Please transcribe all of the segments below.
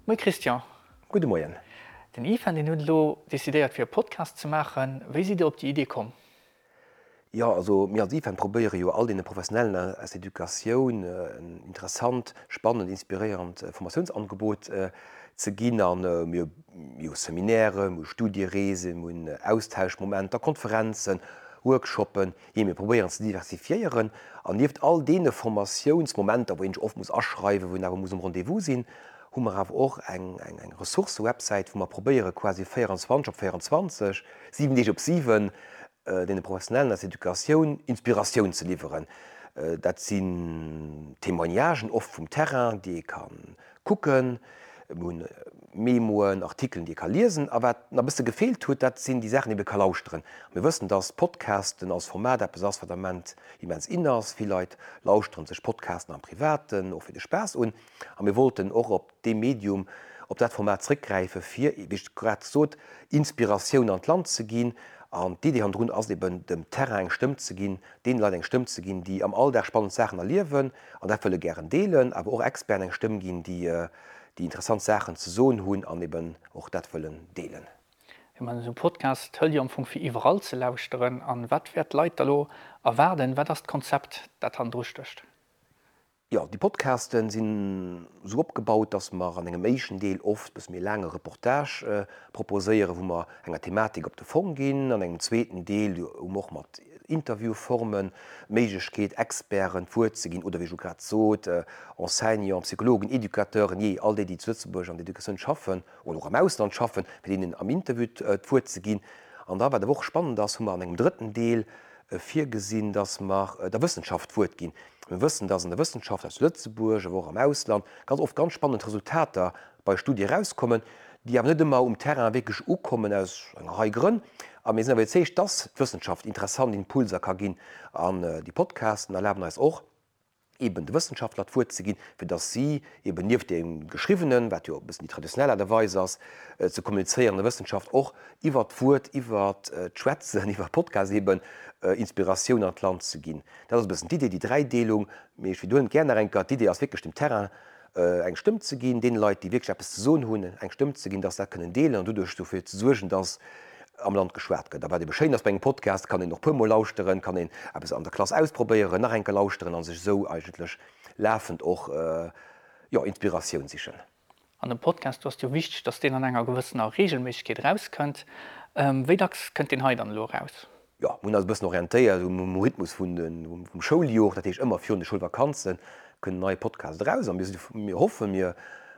Moie Christian. Gudde Moien. Den IFEN deen huet elo decidéiert fir e Podcast ze maachen. Wéi sidd Dir op déi Idee komm? Jo, also mir als IFEN probéiere jo all deene Professionellen aus der Educatioun en interessant, spannend, inspiréierend Formatiounsangebot ze ginn. A mir hu Seminairen, mir hu Studiereesen, mir hunn Austauschmomenter, Konferenzen, Workshoppen. Jee, mir probéieren ze diversifiéieren. An nieft all deene Formatiounsmomenter, wou een sech oft muss aschreiwen, wou een awer muss um Rendez-vous sinn, hu mer awer och eng Ressourcë-Websäit, wou mer probéiere quasi 24 op 24, 7 Deeg op 7, deene Professionellen aus der Educatioun Inspiratioun ze liwweren. Dat sinn Témoignagen, oft vum Terrain, déi ee ka kucken. Mir hunn Memoen, Artikelen, déi ee ka liesen. A wat nach e bësse gefeelt huet, dat sinn déi Saachen, déi ee ka lauschteren. Mir wëssen, dass Podcasten als Format eppes ass, wat am Moment immens in ass. Vill Leit lauschteren sech Podcasten am Privaten, och fir de Spaass un. A mir wollten och op dee Medium, op dat Format zréckgräifen, fir, wéi ech grad sot, Inspiratioun an d'Land ze ginn. An d'Idee hannendrun ass eben, dem Terrain eng Stëmm ze ginn, deene Leit eng Stëmm ze ginn, déi am Alldag spannend Saachen erliewen an dat wëlle gären deelen, awer och Experten eng Stëmm ginn, déi déi interessant Saachen ze soen hunn an eben och dat wëllen deelen. Jo, mä esou e Podcast hëlt jo am Fong fir iwwerall ze lauschteren. An wat wäert d'Leit da lo erwaarden? Wat ass d'Konzept, dat hannendru stécht? Jo, déi Podcasten sinn esou opgebaut, dass mer an engem éischten Deel oft e bësse méi laange Reportage proposéieren, wou mer enger Thematik op de Fong ginn. An engem zweeten Deel hu mer och mat Interviewformen d'Méiglechkeet, Experten d'Wuert ze ginn oder, wéi ech elo grad sot, Enseignanten, Psychologen, Educateuren, jee, all déi, déi zu Lëtzebuerg an der Educatioun schaffen oder och am Ausland schaffen, fir deenen am Interview d'Wuert ze ginn. An da, wat awer och spannend ass, hu mer an engem drëtten Deel virgesinn, dass mer der Wëssenschaft d'Wuert ginn. Mir wëssen, dass an der Wëssenschaft aus Lëtzebuerg, awer och am Ausland, ganz oft ganz spannend Resultater bei Studie erauskommen, déi awer net ëmmer um Terrain wierklech ukommen, aus enger Rei Grënn. A mir sinn awer iwwerzeegt, dass d'Wëssenschaft interessant Impulser ka ginn. An déi Podcasten erlaben eis och, eeben de Wëssenschaftler d'Wuert ze ginn, fir dass si eeben nieft deem Geschriwwenen, wat jo e bëssen déi traditionell Aart a Weis ass, ze kommunizéieren an der Wëssenschaft, och iwwert d'Wuert, iwwert d'Schwätzen, iwwer Podcast eeben Inspiratioun an d'Land ze ginn. Dat ass e bëssen d'Idee, déi Dräideelung. Mee ech widderhuelen et gär nach eng Kéier, D'Idee ass wierklech dem Terrain eng Stëmm ze ginn, deene Leit, déi wierklech eppes ze soen hunn, eng Stëmm ze ginn, dass se dat kënnen deelen an doduerch dofir ze suergen, dass am Land geschwat gëtt. A wat ebe schéin ass bei engem Podcast, kann een och puermol lauschteren, kann een eppes an der Klass ausprobéieren, nach eng Kéier lauschteren a sech esou eigentlech lafend och, jo, Inspiratioun sichen. An dem Podcast, do ass et jo wichteg, dass deen an enger gewëssener Regelméissegkeet erauskënnt. Wéi dacks kënnt deen hei dann elo eraus? Jo, mir hunn eis e bëssen orientéiert um Rhythmus vun de, vum Schouljoer. Dat heescht, ëmmer virun de Schoulvakanze kënnt en neie Podcast eraus. A mir si, mir hoffen, mir,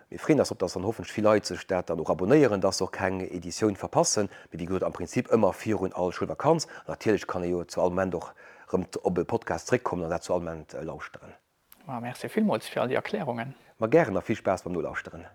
mir freeën eis drop, dass dann hoffentlech vill Leit sech dat dann och abonéieren, dass se och keng Editioun verpassen. Mee wéi gesot, am Prinzip ëmmer virun all Schoulvakanz. An natierlech kann ee jo zu all Moment och erëm op e Podcast zréckkommen an dat zu all Moment lauschteren. Ma merci villmools fir all déi Erklärungen. Ma gären a vill Spaass beim Nolauschteren.